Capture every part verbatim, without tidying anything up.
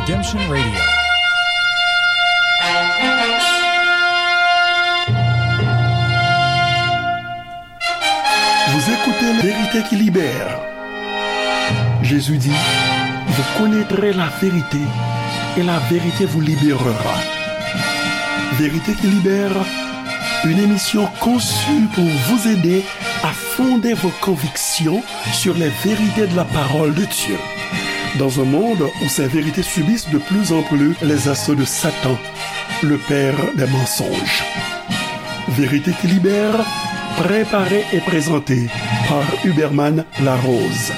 Redemption Radio. Vous écoutez La Vérité qui libère. Jésus dit, vous connaîtrez la vérité et la vérité vous libérera. Vérité qui libère, une émission conçue pour vous aider à fonder vos convictions sur les vérités de la parole de Dieu. Dans un monde où ces vérités subissent de plus en plus les assauts de Satan, le père des mensonges. Vérité qui libère, préparée et présentée par Huberman Larose.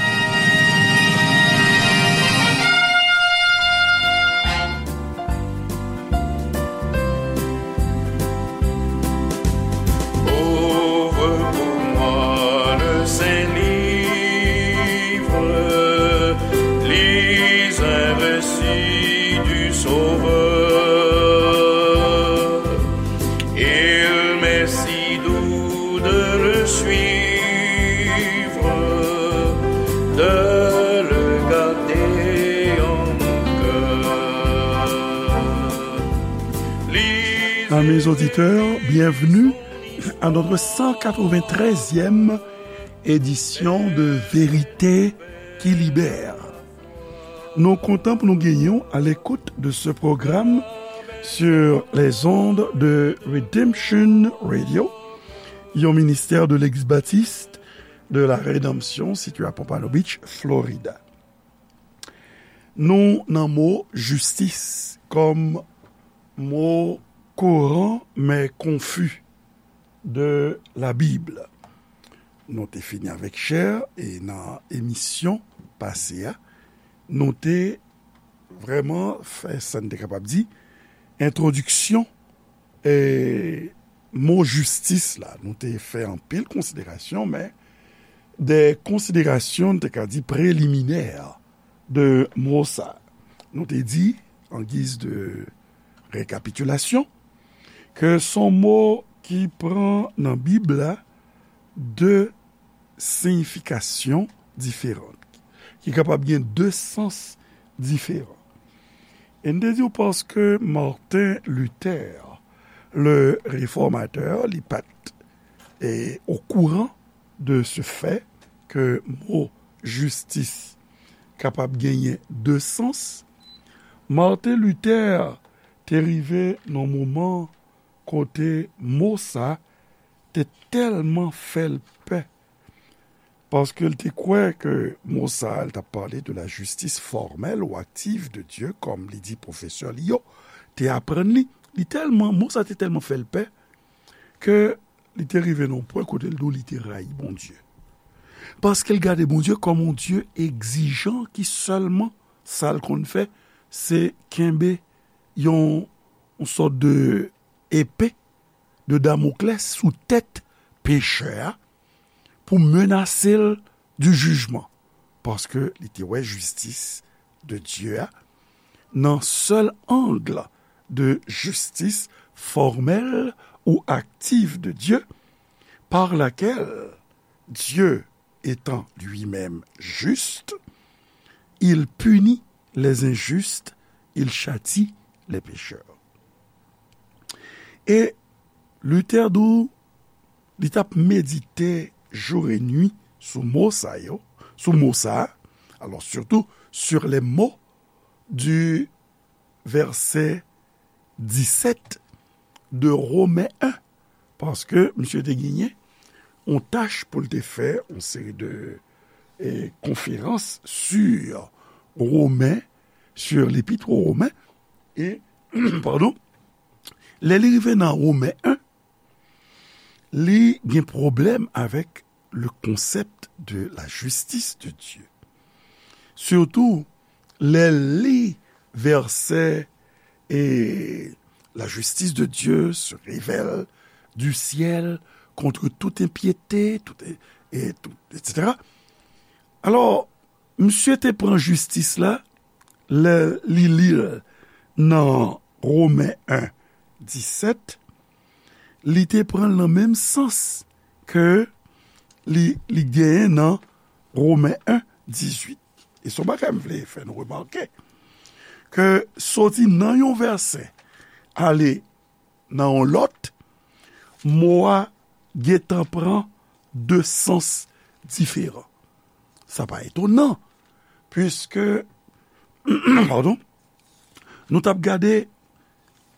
Ouvre pour moi le saint livre, lis un récit du Sauveur. Il m'est si doux de le suivre, de le garder en mon cœur. Amis auditeurs, bienvenue à notre cent quatre-vingt-treizième édition de Vérité qui libère. Nou kontan pou nou genyen w à l'écoute de ce programme sur les ondes de Redemption Radio, yon ministè de Legliz Batis de la Rédemption, sitiye à Pompano Beach, Florida. Nou nan mo jistis kòm mo kouran men konfi de la Bib. Nou te fini avèk chè e nan emisyon pase a, nou te vrèman fè sa n te kapab di entwodiksyon e mo jistis la. Nou te fè anpil konsiderasyon, men de konsiderasyon, n te ka di, preliminè de mo sa. Nou te di, an giz de rekapitilasyon, ke s on mo ki pran nan Bib la de siyifikasyon diferan, ki kapab gen de sans diferan. E n te di w paske Martin Luther, le réformateur, li pa t, e, okouran de ce fait ke mo jistis kapab genyen de sans, Martin Luther te rive nan moman kote mo sa te tèlman fè l pè, paske l te kwè ke mo sa a, l t ap pale de la justice formelle ou active de Dieu, kòm li di pwofesè li yo te aprann li. Li tèlman, mo sa te tèlman fè l pè ke li te rive nan yon pwen kote l di w li te rayi Bondye. Paske l gade Bondye kòm yon Dye egzijan ki sèlman sa l konn fè, se kenbe yon, yon sòt de epe de Damoklès sou tèt pechè a pou menase l di jijman, paske li te wè jistis de Dye a nan sèl ang de justice formelle ou active de Dieu, par laquelle Dieu, étant lui-même juste, il punit les injustes, il châtie les pécheurs. E Luther di w, li t ap medite jour et nuit sou mo sa yo, sou mo sa a, alors surtout sur les mots du verset dix-sept de Romains un, paske misye te genyen yon tach pou l te fè yon seri de, eh, konferans sur Romain, sur l'épître aux Romains, e, padon, lè li rive nan Romen en, li gen pwoblèm avèk le concept de la justice de Dieu. Sitou, lè l li vèsè, et la justice de Dieu se révèle du ciel contre toute impiété, tout, et, et tout, et cetera. Alò, misye te pran jistis la, lè li li l nan Romen en disèt, li te pran l nan menm sans ke li, li genyen nan Romen en dizuit. E se yon bagay m vle fè nou remake, ke soti nan yon vèsè ale nan yon lòt, mo a gentan pran de sans diferan. Sa pa etonan, piske, padon, nou t ap gade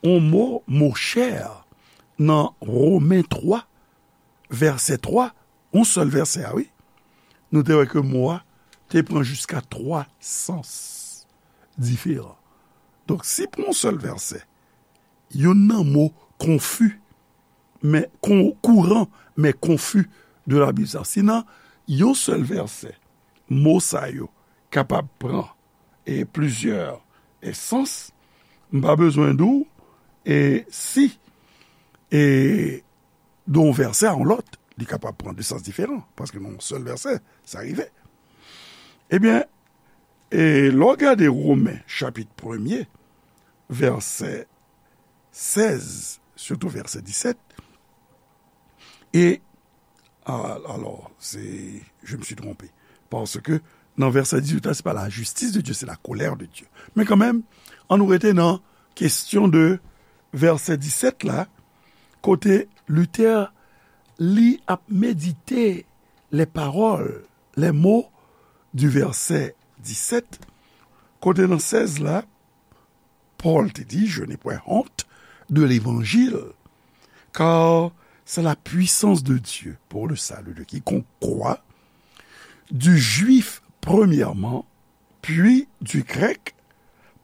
yon mo, mo chè, nan Women twa, vèsè twa, yon sèl vèsè a, wi, nou te wè ke mo a te pran jiska twa sans diferan. Donk, si pou yon sèl vèsè, youn nan mo konfi, men kon, kouran, men konfi de Labib sa, si nan yon sèl vèsè, mo sa yo kapab pran e plizyè e sans, m pa bezwen di w e si e de yon vèsè a yon lòt, li kapab pran de sans diferan, paske nan yon sèl vèsè, sa rive. Ebyen, e lè w gade Women chapit premye, vèsè sèz, sitou vèsè disèt, e, a, alò, se, je me suis trompé, paske nan vèsè dizuit la, se pa la justice de Dieu, c'est la colère de Dieu. Men kanmenm, ann nou rete nan kesyon de vèsè disèt la, kote Luther, li ap medite les paroles, les mots du verset disèt, kote nan sèz la, Pòl te di, je n'ai point honte de l'évangile, car c'est la puissance de Dieu pour le salut de quiconque croit, du juif premièrement, puis du grec,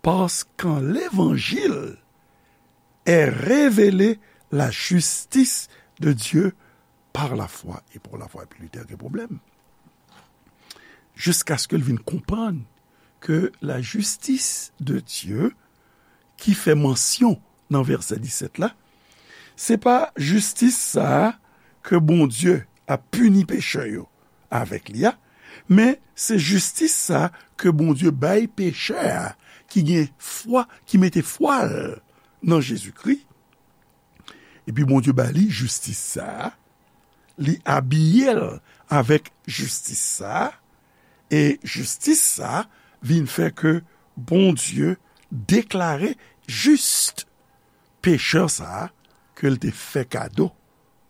parce qu'en l'évangile est révélée la justice de Dieu par la foi et pour la foi. Epi Luther gen pwoblèm. Jiskaske l vin konprann ke la justice de Dieu ki fè mansyon nan vèsè disèt la, se pa jistis sa a ke Bondye ap pini pechè yo avèk li a, men se jistis sa a ke Bondye bay pechè a ki gen fwa, ki mete fwa l nan Jezikri. Epi Bondye ba li jistis sa a, li abiye l avèk jistis sa a, e jistis sa a vin fè ke Bondye deklare jis pechè sa a ke l te fè kado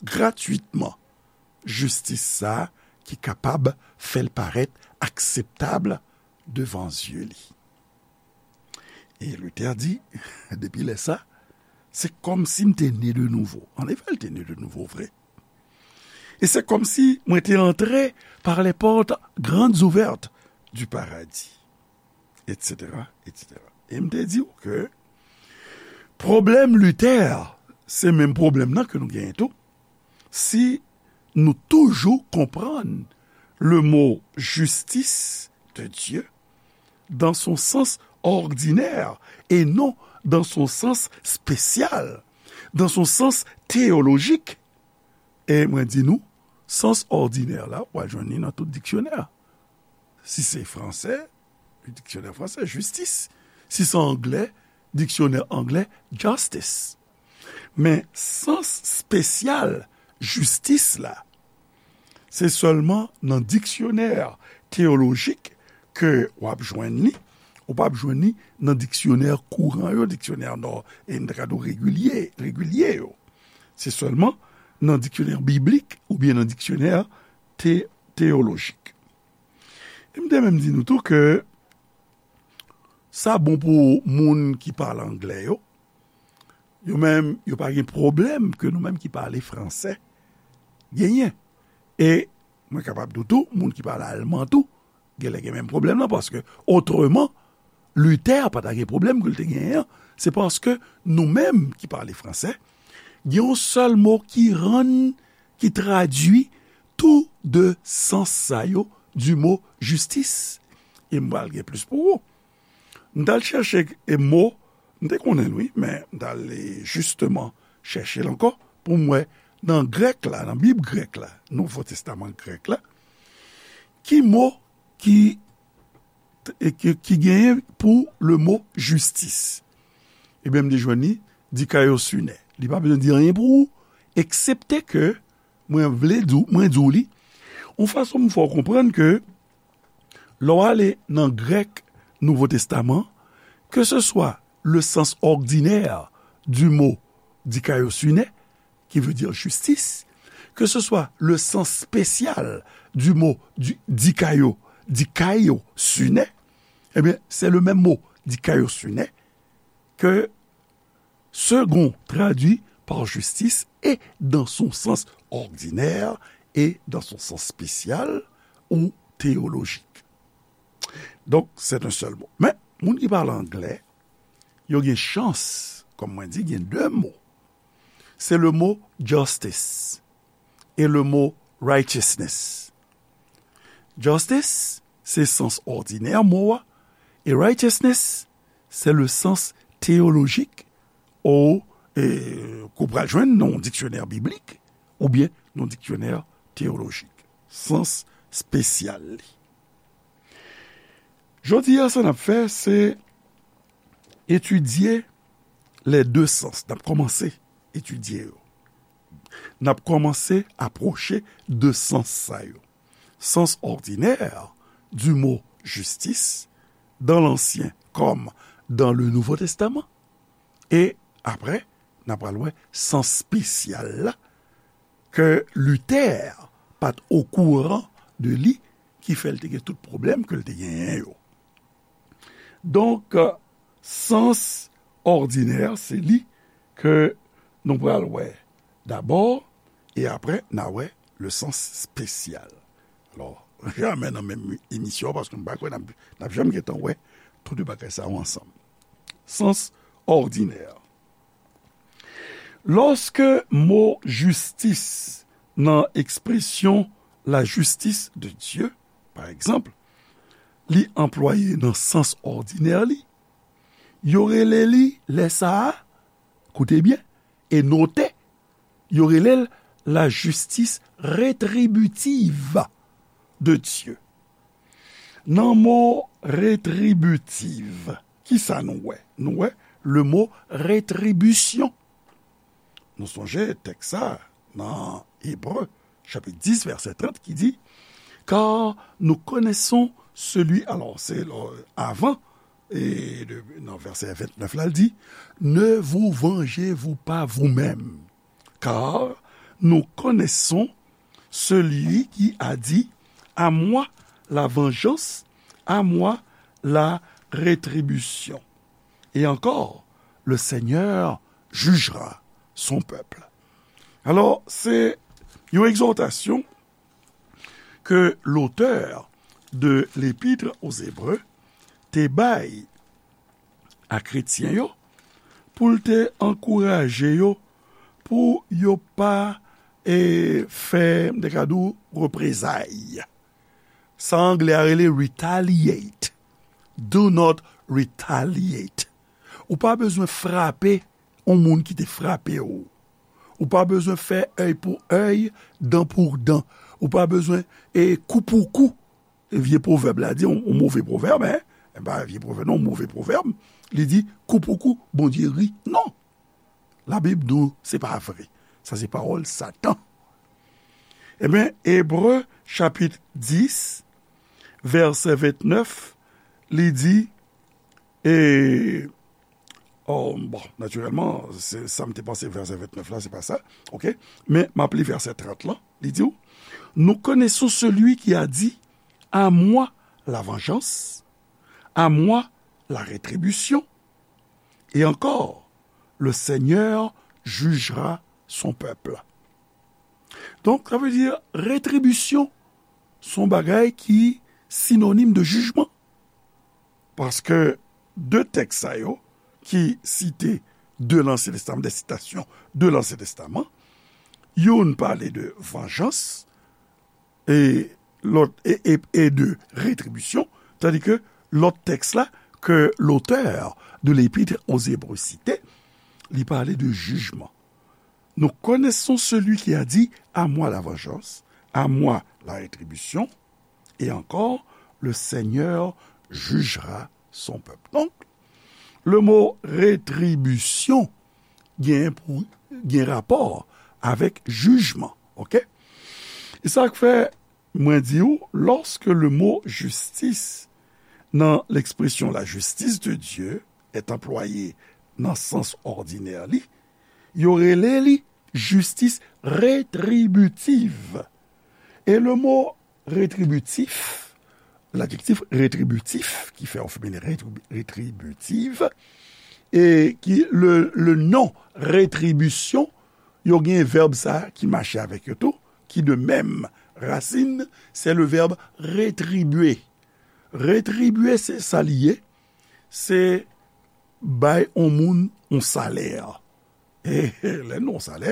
gratwitman jistis sa a ki kapab fè l parèt akseptab devan zye li. E Luther di, depi lè sa, se kòmsi m te ne de nouvo. Annefè, l te ne de nouvo vre. E se kòmsi mwen te antre par les portes grandes ouvertes du paradis, et cetera, et cetera. E m te di w ke pwoblèm Luther, se menm pwoblèm nan ke nou genyen tou. Si nou toujou konprann le mot justice de Dieu dans son sens ordinaire et non dans son sens spécial, dans son sens théologique. E mwen di nou, sans ordinaire la, w a jwenn li nan tout diksyonè. Si se fransè, diksyonè fransè, justice. Si se anglè, diksyonè anglè, justice. Men sans spesyal jistis la, se sèlman nan diksyonè teyolojik ke w ap jwenn li. Ou p ap jwenn li nan diksyonè kouran yo, diksyonè nò, e n ta ka di w regilye, regilye yo. Se sèlman nan diksyonè biblik oubyen nan diksyonè te-, teyolojik. E m te menm di nou tou ke sa bon pou moun ki pale anglè yo. Yo menm, yo pa gen pwoblèm ke nou menm ki pale fransè genyen. E mwen kapab di w tou, moun ki pale alman tou, genlè gen menm pwoblèm nan, paske otreman, Luther pa ta gen pwoblèm ke l te genyen an. Se paske nou menm ki pale fransè, gen yon sèl mo ki rann, ki tradui tou de sans sa yo du mot justice. E m pral gen plis pou ou. M t al chèche e mo, m te konnen l wi, men m t al, e, jisteman chèche l ankò pou m wè nan grèk la, nan Bib grèk la, Nouvo Testaman grèk la, ki mo ki, e, ki, ki genyen pou le mo justice. Ebyen, m te jwenn li, dikaiosune. Li pa bezwen di anyen pou ou, eksepte ke mwen vle di w, mwen di w li, yon fason m fè w konprann ke lè w ale nan grèk Nouvo Testaman, Que ce soit le sens ordinaire du mot dikaiosune, qui veut dire justice, que ce soit le sens spécial du mot du, dikaio, dikaiosune, eh bien, c'est le même mot, dikaiosune, que Segond traduit par justice et dans son sens ordinaire et dans son sens spécial ou théologique. Donc, c'est un seul mot. Men, moun ki pale anglè, yo gen chans, kòm mwen di, gen de mo. Se le mo justice e le mo righteousness. Justice, se sans òdinè mo a, e righteousness, se le sens théologique ou, e, ke w pral jwenn nan yon diksyonè biblik oubyen nan yon diksyonè teyolojik. Sans espesyal li. Jodi a, sa n ap fè, se etidye les deux sens. N ap kòmanse etidye yo. N ap kòmanse apwoche de sans sa yo. Sens ordinaire du mot justice dans l'Ancien comme dans le Nouveau Testament. E apre, n ap pral wè sans espesyal la ke Luther pa t okouran de li, ki fè l te gen tout pwoblèm ke l te genyen yo. Donk, sans òdinè, se li ke nou pral wè dabò, e apre, n a wè le sens spécial. Alò, jamè nan menm emisyon, paske m pa kwè n ap, n ap janm gentan wè tout de bagay sa yo ansanm. Sans òdinè. Lòske mo jistis nan ekspresyon la justice de Dieu, pa egzanp, li anplwaye nan sans òdinè li, yo rele li lè sa a, koute byen, e note, yo rele l la justice rétributive de Dieu. Nan mo retribitiv, kisa nou wè? Nou wè le mo retribisyon. Nou sonje tèks sa nan Ebre, chapit dis, vèsè trant, ki di, Car nous connaissons celui, alò, se, euh, avan, e de, nan vèsè ventnèf la, l di, Ne vous vengez-vous pas vous-même, car nous connaissons celui qui a dit, À moi la vengeance, à moi la rétribution. Et encore, le Seigneur jugera son peuple. Alò, se yon egzòtasyon ke lotè de L'Épître aux Hébreux te bay a kretyen yo, pou l te ankouraje yo, pou yo pa, e, fè, m te ka di w, reprezay. Sa anglè a rele retaliate. Do not retaliate. Ou pa bezwen frape yon moun ki te frape w. Ou pa bezwen fè èy pou èy, dan pou dan. Ou pa bezwen, e, kou pou kou. E vye pwovèb la di, yon, yon move pwovèb, en. E pa vye pwovèb, non, move pwovèb. Li di, kou pou kou, Bondye ri. Non. Labib di w se pa vre. Sa se pawòl Satan. Ebyen, Ebre, chapit dis, vèsè ventnèf, li di, e, oh, bon, natirèlman, se, sa m te panse vèsè ventnèf la, se pa sa, oke? Men, m ap li vèsè trant lan, li di w, Nous connaissons celui qui a dit, À moi la vengeance, à moi la rétribution. Et encore, le Seigneur jugera son peuple. Donk, sa vle di, retribisyon, se yon bagay ki sinonim de jijman. Paske de tèks sa yo ki site de Lansyen Testaman, de sitasyon de Lansyen Testaman, youn pale de vanjans, e lòt, e, e, e de retribisyon, tandi ke lòt tèks la, ke lotè de L'Épître aux Hébreux site, li pale de jijman. Nous connaissons celui qui a dit, À moi la vengeance, à moi la rétribution, et encore, le Seigneur jugera son peuple. Donk, le mo retribisyon gen pou, gen rapò avèk jijman, oke? E sa k fè mwen di w, lorsque le mot justice, nan l'expression la justice de Dieu, est employé nan sans òdinè li, yo rele li jistis retribitiv. E le mo retribitif, ladjektif retribitif, ki fè yon feminen retribi-, retribitiv, e ki le, le non retribisyon, yo gen vèb sa ki mache avèk yo tou, ki de menm rasin, se le vèb retribye. Retribye, se sa li ye, se bay on moun on salè. E lè nou on salè,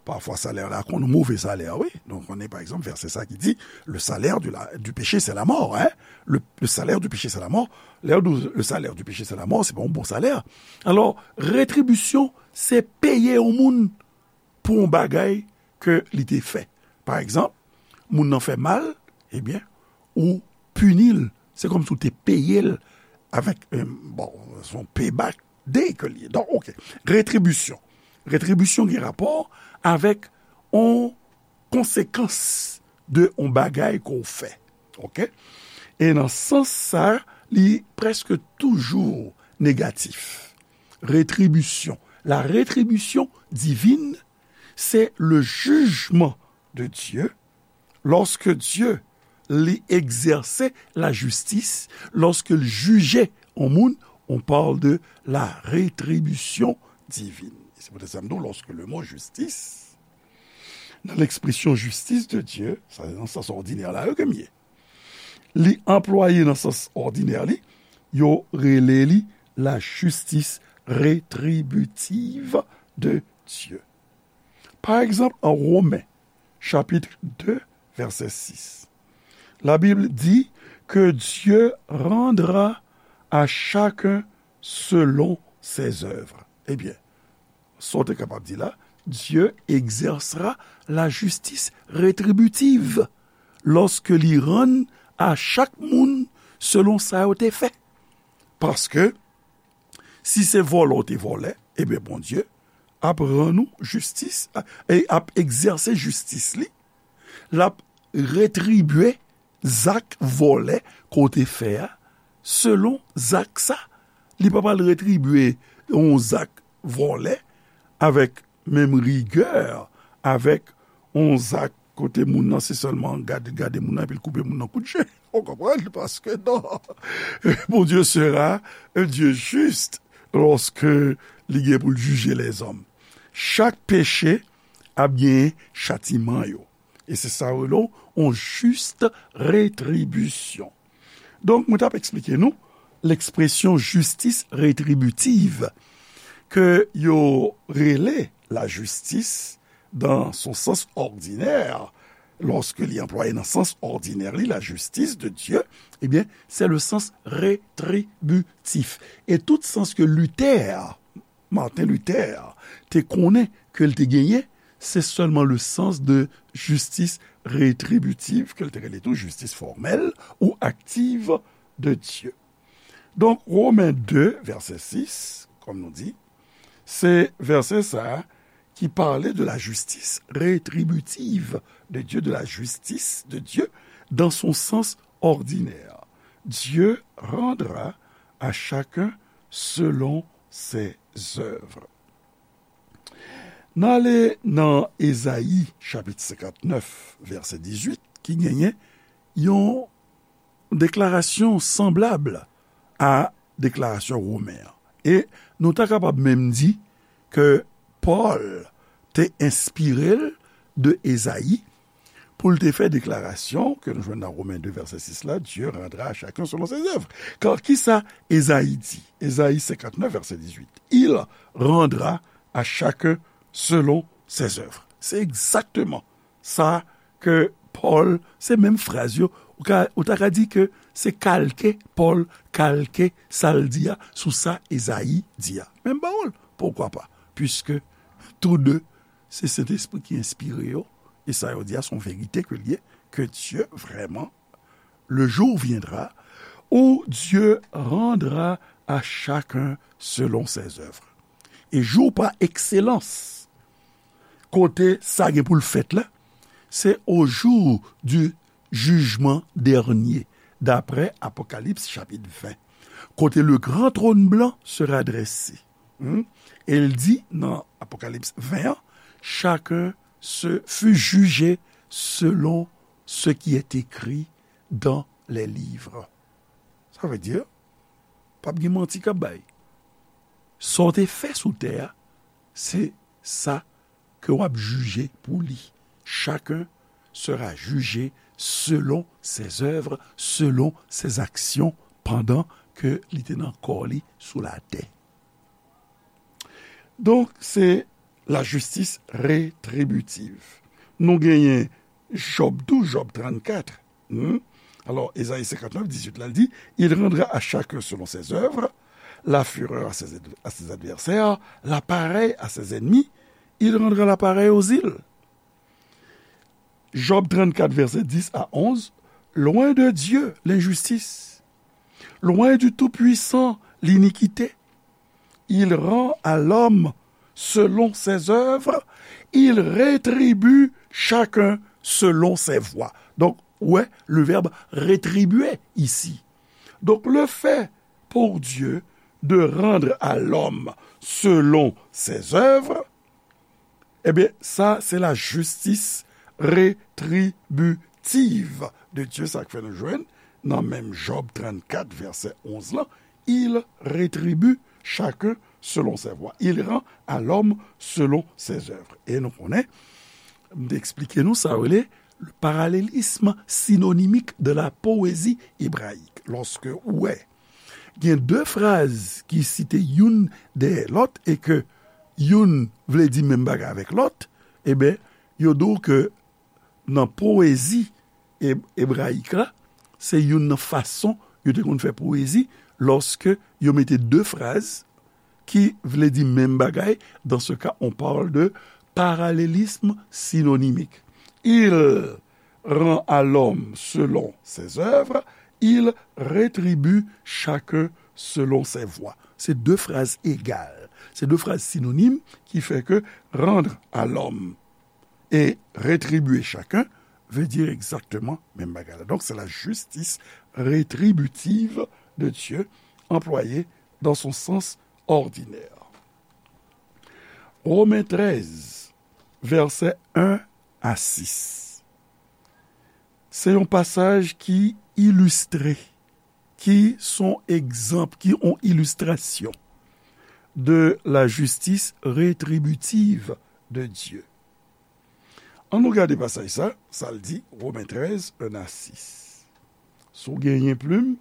pafwa salè la konn move salè, wi. Donk, konnen, pa egzanp, vèsè sa ki di, le salaire du, la, du péché, c'est la mort, hein? Le, le salaire du péché, c'est la mort. Lè yo di le salaire du péché, c'est la mort, se pa yon bon salè. Alò, retribisyon, se peye yon moun pou yon bagay ke li te fè. Pa egzanp, moun nan fè mal, ebyen, ou pini l. Se kòmsi w te peye l avèk, eh, bon, se yon payback day ke li ye. Donk, oke. Retribisyon. Retribisyon gen rapò avèk yon konsekans de yon bagay ke w fè. Oke? E nan sans sa, li prèske toujou negatif. Retribisyon. La retribisyon divin, se le jijman de Dye. Lòske Dye li egzèse lajistis, lòske l jije yon moun, on parle de la retribution divine. E se poutèt sa m di w, lòske le mo jistis, nan lekspresyon jistis de Dye, sa se nan sans òdinè la yo ke m ye, li anplwaye nan sans òdinè li, yo rele li la justice rétributive de Dieu. Pa egzanp, an Women, chapit de, vèsè sis, la Bible dit que Dieu rendra à chacun selon ses œuvres. Ebyen, sa w te kapab di la, Dieu exercera la justice rétributive lòske li rann a chak moun selon sa yo te fè. Paske, si se vòlè w te vòlè, ebyen, Bondye ap rann ou jistis, e ap egzèse jistis li, l ap retribye zak vòlè ke w te fè a, selon zak sa. Li pa pral retribye yon zak vòlè avèk menm rigè, avèk yon zak kote moun nan se sèlman gade, gade moun nan, epi l koupe moun nan kout je. Ou konprann? Paske non. Bondye sera un Dieu juste lorsque li gen pou l jije lèzòm. Chak peche ap gen chatiman yo. E se sa yo rele yon jis retribisyon. Donk, mwen t ap eksplike nou lekspresyon jistis retribitiv ke yo rele lajistis dan son sans òdinè, lòske li anplwaye nan sans òdinè li, la justice de Dieu, ebyen, se le sans retribitif. E tout sans ke Luther, Martin Luther, te konnen ke l te genyen, se sèlman le sans de justice retributive, ke l te rele tou justice formelle ou active de Dieu. Donk, Women de, vèsè sis, kòm nou di, se vèsè sa a ki pale de la justice rétributive de Dieu, de la justice de Dieu dans son sens ordinaire. Dieu rendra à chacun selon ses œuvres. N ale nan Ezayi, chapit senkantnèf, vèsè dizuit, ki genyen yon deklarasyon sanblab a deklarasyon Women an. E nou ta kapab menm di ke Pòl te enspire l de Ezayi pou l te fè deklarasyon ke nou jwenn nan Women de vèsè sis la, Dieu rendra à chacun selon ses œuvres. Kar kisa Ezayi di? Ezayi senkantnèf, vèsè dizuit. Il rendra à chacun selon ses œuvres. Se egzakteman sa ke Pòl, se menm fraz yo, ou ka, ou ta ka di ke se kalke Pòl, kalke sa l di a sou sa Ezayi di a. Menm pawòl, poukwa pa? Puiske tou de, se Sentespri ki enspire yo, e sa yo di a se yon verite ke l ye, ke Dye vrèman, le jour viendra où Dieu rendra à chacun selon ses œuvres. E jou pa ekselans, kote sa gen pou l fèt la, se au jour du jugement dernier, d'après Apocalypse chapitre vingt. kote le gran trône blanc sera dressé. Hmm? E l di nan Apokalips ven an, chacun se fut jugé selon ce qui est écrit dans les livres. Sa vle di, p ap gen manti k ap bay. Sa w te fè sou tè a, se sa ke w ap jije pou li. Chacun sera jugé selon ses œuvres, selon ses actions, pendant ke li te nan kò li sou latè. Donk, se la justice rétributive. Nou genyen Jòb tou, Jòb trannkat. Hmm? Alò, Ezayi senkantnèf, dizuit la, l di, il rendra à chacun selon ses œuvres, la fureur à ses, ad- à ses adversaires, l'appareil à ses ennemis, il rendra l'appareil aux îles. Jòb trannkat, vèsè dis a onz, loin de Dieu l'injustice, loin du Tout-Puissant l'iniquité. Il rend à l'homme selon ses œuvres, il rétribue chacun selon ses voies. Donc, ouais, le verbe rétribuer ici. Donc, le fait pour Dieu de rendre à l'homme selon ses œuvres, ebyen, sa se la justice rétributive de Dieu, sa k fè nou jwenn nan menm Jòb trannkat, vèsè onz lan, il rétribue chacun selon ses voies. Il rend à l'homme selon ses œuvres. E nou konnen, m te eksplike nou sa rele le parallélisme synonymique de la poésie hébraïque. Lòske ou wè gen de fraz ki site youn dèyè lòt e ke youn vle di menm bagay avèk lòt, ebyen, yo di w ke nan powezi e- ebrayik la, se youn nan fason yo te konn fè powezi lòske yo mete de fraz ki vle di menm bagay. Dans ce cas, on parle de parallélisme synonymique. Il rend à l'homme selon ses œuvres, il rétribue chacun selon ses voies. Se de fraz egal. Se de fraz sinonim ki fè ke rendre à l'homme et rétribuer chacun veut dire exactement menm bagay la. Donc, c'est la justice rétributive de Dieu employée dans son sens ordinaire. Romen trèz, vèsè en a sis. Se yon pasaj ki ilistre, ki son egzanp, ki yon ilistrasyon de la justice rétributive de Dieu. Ann nou gade pasaj sa, sa l di, Romen trèz, en a sis. Si w genyen plim,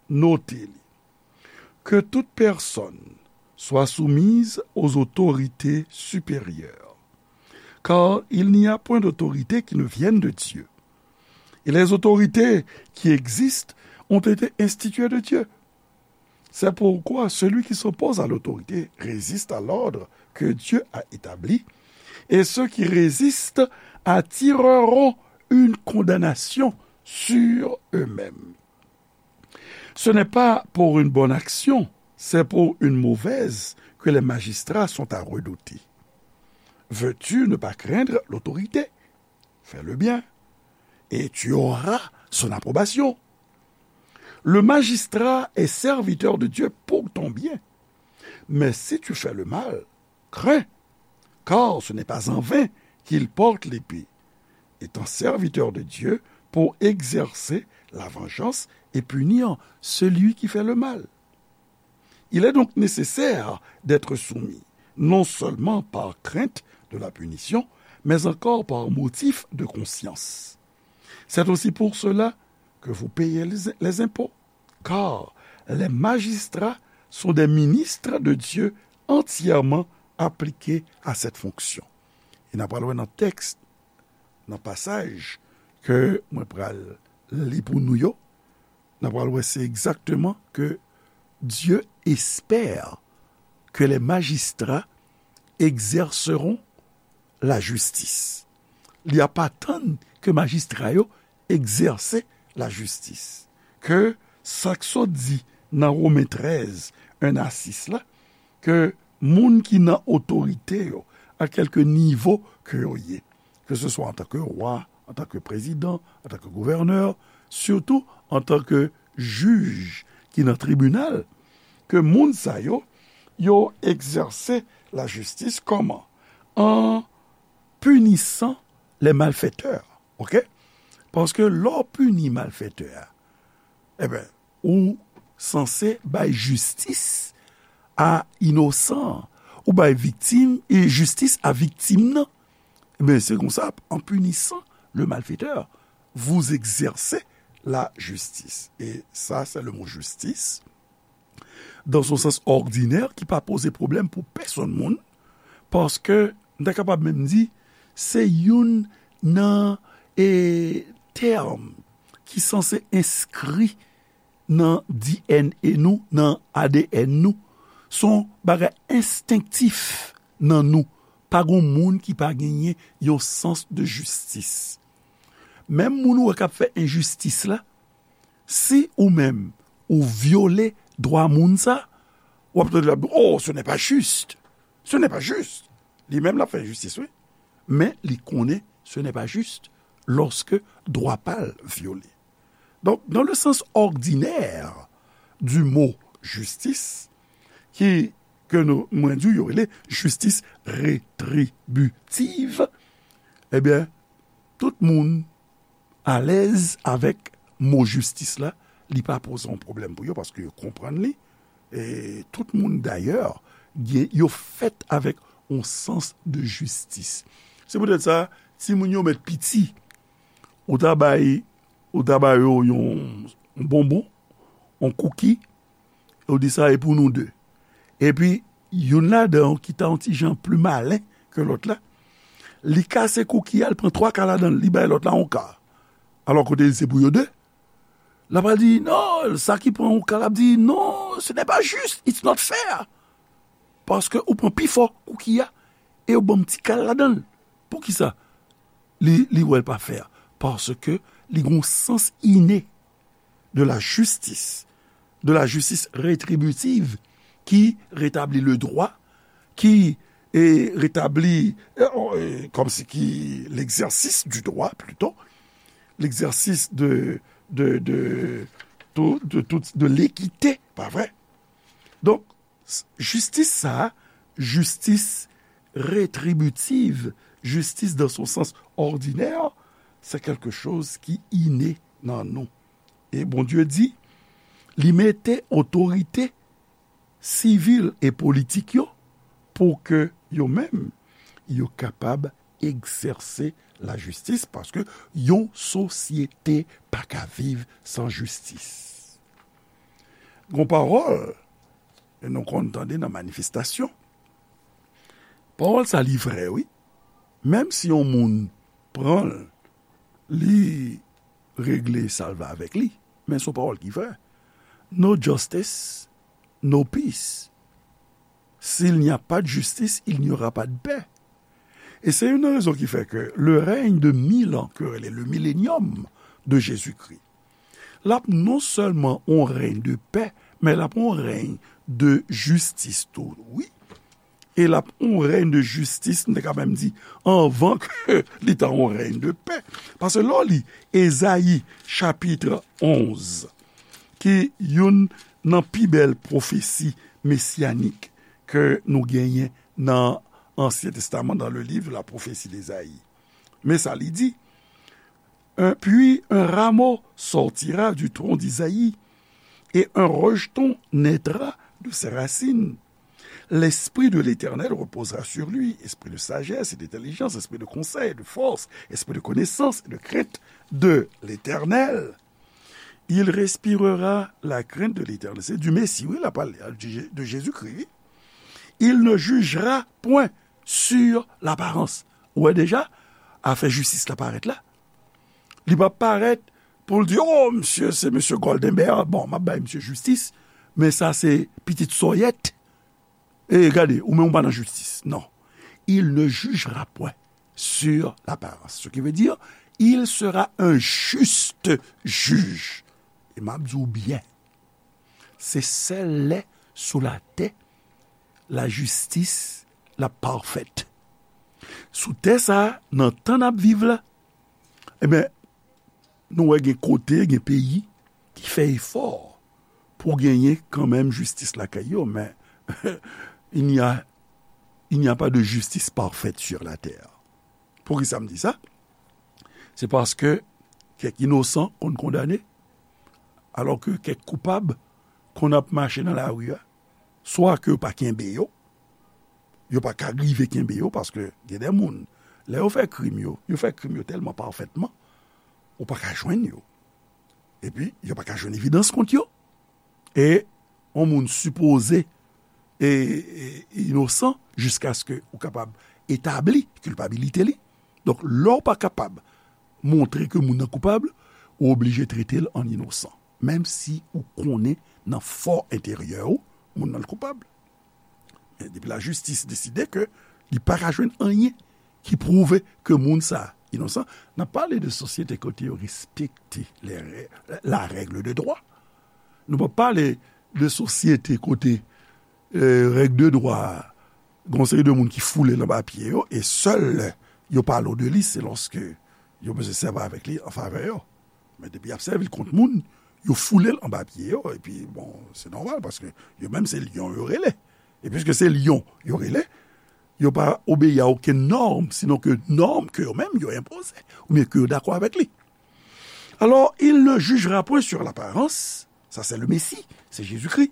note li. Que toute personne soit soumise aux autorités supérieures, car il n'y a point d'autorité qui ne vienne de Dieu. Et les autorités qui existent ont été instituées de Dieu. C'est pourquoi celui qui s'oppose à l'autorité résiste à l'ordre que Dieu a établi, et ceux qui résistent attireront une condamnation sur eux-mêmes. Ce n'est pas pour une bonne action, c'est pour une mauvaise que les magistrats sont à redouter. Veux-tu ne pas craindre l'autorité ? Fais le bien, et tu auras son approbation. Le magistrat est serviteur de Dieu pour ton bien. Mais si tu fais le mal, crains, car ce n'est pas en vain qu'il porte l'épée, étant serviteur de Dieu pour exercer la vengeance et punir celui qui fait le mal. Il est donc nécessaire d'être soumis, non seulement par crainte de la punition, mais encore par motif de conscience. C'est aussi pour cela que vous payez les, les impôts, car les magistrats sont des ministres de Dieu entièrement appliqués à cette fonction. E n ap pral wè nan tèks, nan pasaj ke mwen pral li pou nou yo, n ap pral wè se egzakteman ke Dieu espère que les magistrats exerceront la justice. Li ap atann ke majistra yo egzèse lajistis. Ke sa k sot di nan Women trèz, en a sis la, ke moun ki nan otorite yo, a kèlke nivo ke yo ye, ke se swa antanke wa, antanke prezidan, antanke gouvènè, sitou antanke jij ki nan tribinal, ke moun sa yo, yo egzèse lajistis kòman? An pinisan les malfaiteurs, oke? Paske lè w pini malfètè a, enben, ou sanse bay jistis a inosan, ou bay viktim, e jistis a viktim nan. Enben, se konsa, en punissant le malfaiteur, vous exercez la justice. Et ça, c'est le mot justice. Dans son sens ordinaire, ki pa poze pwoblèm pou pèsonn moun, paske, m ta kapab menm di, se youn nan, e, tèm ki sanse enskri nan D N A nou, nan A D N nou. Se yon bagay enstenktif nan nou. Pa gen moun ki pa genyen yon sans de jistis. Menm moun ou wè k ap fè enjistis la, si ou menm ou vyole dwa moun sa, w ap tande l ap di, "Oh, ce n'est pas juste. Ce n'est pas juste." Li menm l ap fè enjistis, wi. Men li konnen ce n'est pas juste lorsque dwa pa l vyole. Donk, dans le sens ordinaire du mot justice, ki, ke nou, mwen di w, yo rele jistis retribitiv, ebyen, tout moun alèz avèk mo jistis la, li pa poze yon pwoblèm pou yo paske yo konprann li. E tout moun dayè, gen, yo fèt avèk yon sans de jistis. Se poutèt sa, timoun yo mèt piti, ou ta bay, ou ta ba yo yon, yon bonbon, yon kouki, e w di sa e pou nou de. Epi, youn ladan yo ki ta yon ti jan pli malen ke lòt la, li kase kouki a, li pran twa ka ladan l, li bay lòt la yon ka. Alò kote li se pou yo de. L ap al di, non, sa ki pran yon ka, l ap di, non, ce n'est pas juste, it's not fair. Paske ou pran pi fò kouki a, e ou ban m ti ka ladan l. Poukisa? Li, li wè l pa fè. Paske li gen yon sans ine de la justice, de la justice rétributive, ki retabli le droit, ki, e, retabli, e, e, kòmsi ki l'exercice du droit, plutôt, l'exercice de, de, de, tout, de, tout, de l'équité, pa vre? Donk, s-, jistis sa a, jistis retribitiv, jistis dans son sens ordinaire, c'est quelque chose qui inné nan nou. E Bondye di, li mete otorite sivil e politik yo pou ke yo menm, yo kapab egzèse lajistis, paske yon sosyete pa ka viv san jistis. Gon pawòl, e nou konn tande nan manifestasyon. Pawòl sa li vrè, wi. Menm si yon moun pran l, li regle sa l vle avèk li. Men se yon pawòl ki vrè. No justice, no peace. S'il n'y a pas de justice, il n'y aura pas de paix. E se youn nan rezon ki fè ke le règne de mille ans, ke yo rele le millénium de Jésus-Christ, l ap non sèlman yon règne de paix, men l ap yon règne de jistis tou, wi. E l ap yon règne de jistis, m te ka menm di, anvan ke li ta yon règne de paix. Paske lè w li Ezayi chapit onz, ki youn nan pi bèl pwofesi mesyanik ke nou genyen nan Ansyen Testaman, dans le livre de la prophétie d'Ésaïe. Men sa li di, un, puis un rameau sortira du tronc d'Isaïe, et un rejeton naîtra de ses racines. L'esprit de l'Éternel reposera sur lui, esprit de sagesse et d'intelligence, esprit de conseil et de force, esprit de connaissance et de crainte de l'Éternel. Il respirera la crainte de l'Éternel. Se di Mesi, wi, l ap pale, de Jezikri, wi. Il ne jugera point sur l'apparence. Ou wè deja, afè jistis la parèt la. Li p ap parèt pou l di, "Oh, misye, se misye Goldenberg. Bon, m ap bay misye jistis, men sa se pitit sòyèt. E gade, ou menm ou pa nan jistis." Non. Il ne jugera point sur l'apparence. Ce qui veut dire, il sera un juste juge. E m ap di w byen, se sèl lè sou latè lajistis la pafèt. Sou tè sa a, nan tan n ap viv la, ebyen, nou wè gen kote, gen peyi ki fè efò pou genyen kanmenm jistis lakay yo, men il n'y a, il n'y a pas de justice parfaite sur la terre. Poukisa m di sa? Se paske kèk inosan konn kondane, alò ke kèk koupab konn ap mache nan lari a, swa ke yo pa kenbe yo, yo pa ka rive kenbe yo, paske gen de moun, lè yo fè krim yo, yo fè krim yo tèlman pafètman, ou pa ka jwenn yo. Epi, yo pa ka jwenn evidans kont yo. E yon moun sipoze e, e inosan jiskaske ou kapab etabli kilpabilite li. Donk, lè w pa kapab montre ke moun nan koupab, ou oblije trete l an inosan, menm si ou konnen nan fò enteryè ou, moun nan koupab. Men depi lajistis deside ke li pa ka jwenn anyen ki pwouve ke moun sa a inosan, n ap pale de sosyete kote yo respekte les rè-, la règle de droit. Nou p ap pale de sosyete kote, eh, règ de dwa a, gen yon seri de moun ki foule l anba pye yo, e sèl lè yo pale w de li, se lòske yo bezwen sèvi avèk li an favè yo. Men depi y ap sèvi l kont moun, yo foule l anba pye yo, epi, bon, se nòmal, paske yo menm se lyon yo rele. E piske se lyon yo rele, yo pa obeyi a okenn nòm, sinon ke nòm ke yo menm yo enpoze, oubyen ke yo dakò avèk li. Alors, il ne jugera point sur l'apparence, ça c'est le Messie, c'est Jésus-Christ,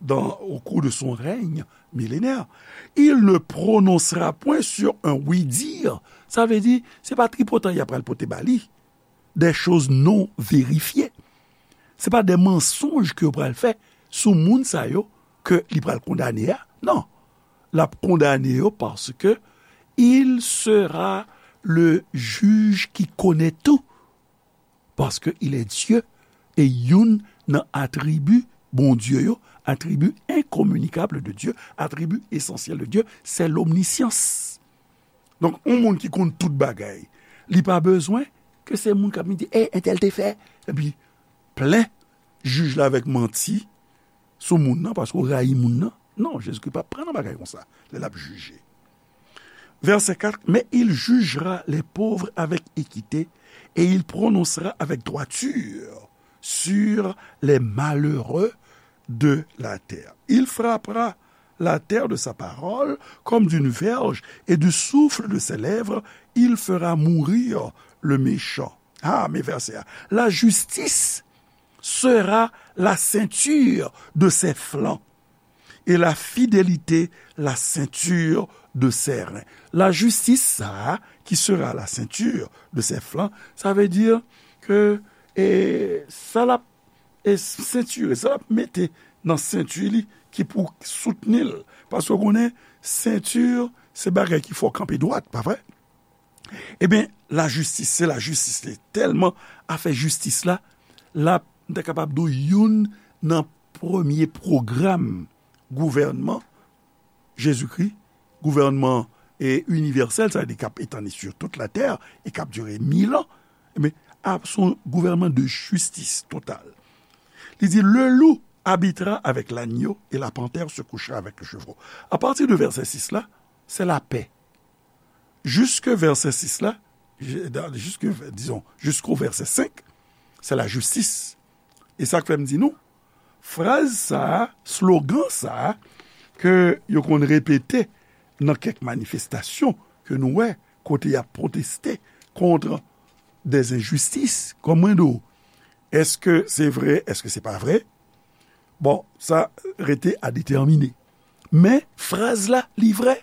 dans, au cours de son règne millénaire. Il ne prononcera point sur un oui-dire, sa vle di, se pa tripotan y ap pral pote ba li, des choses non vérifiées. Se pa de mansonj ke yo pral fè sou moun sa yo ke li pral kondane a. Non. L ap kondane yo paske il sera le juge qui connaît tout. Parce que il est Dieu. E youn nan atribi Bondye yo, atribi enkominikab de Dye, atribi esansyèl de Dye, se lomnisyans. Donk, yon moun ki konn tout bagay, li pa bezwen ke se moun k ap vin di, "Ey, entèl te fè," epi plen jij la avèk manti sou moun nan, paske w rayi moun nan. Non, Jezikri p ap pran nan bagay konsa, lè l ap jije. Verset quatre, mais il jugera les pauvres avec équité, et il prononcera avec droiture sur les malheureux de la terre. Il frappera la terre de sa parole comme d'une verge, et du souffle de ses lèvres, il fera mourir le méchant. Ah, men vèsè a. La justice sera la ceinture de ses flancs, et la fidélité la ceinture de ses reins. La justice, sa a, qui sera la ceinture de ses flancs, sa vle di ke, e, sa l ap, e, sentire, sa l ap mete nan senti li ki pou soutni l. Paske w konnen, senti, se bagay ki fè w kanpe dwat, pa vre? Ebyen, lajistis, se lajistis li. Tèlman afè jistis la, l ap, m ta kapab di w, youn nan premye pwogram gouvènman Jezikri, gouvènman, e, inivèsèl, sa vle di k ap etandi sur toute la terre e k ap dire mil an, ebyen, ap, se yon gouvènman de jistis total. Li di, le loup habitera avec l'agneau et la panthère se couchera avec le chevreau. A pati de vèsè sis la, se lapè. Jiske vèsè sis la, jiske, dizon, jisko vèsè senk, se lajistis. E sa k fè m di nou, fraz sa a, slogan sa a, ke yo konn repete nan kèk manifestasyon ke nou wè, kote y ap pwoteste kont dèzenjistis, kòm mwen di w, èske se vre, èske se pa vre? Bon, sa rete a detèmine. Men, fraz la, li vrè.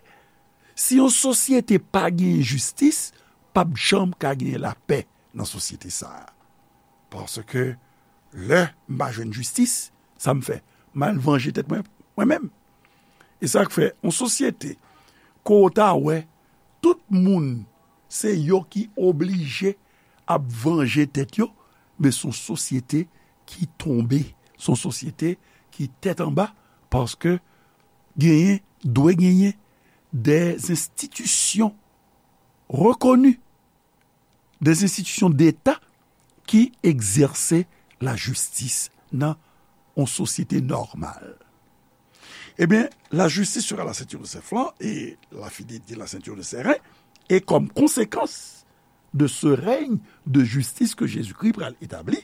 Si yon sosyete pa genyen jistis, p ap janm ka genyen lapè nan sosyete sa a. Paske lè m pa jwenn jistis, sa m fè? M al vanje tèt mwen, mwen menm. E sa k fè, yon sosyete, ke w ta wè, tout moun, se yo ki oblije ap vanje tèt yo, men se yon sosyete ki tonbe, se yon sosyete ki tèt anba, paske genyen, dwe genyen, des institutions reconnues, des institutions d'État ki egzèse lajistis nan yon sosyete nòmal. Ebyen, la justice sera la ceinture de ses flancs et la fidélité la ceinture de ses reins. Et comme conséquence de ce règne de justice que Jésus-Christ pral établir,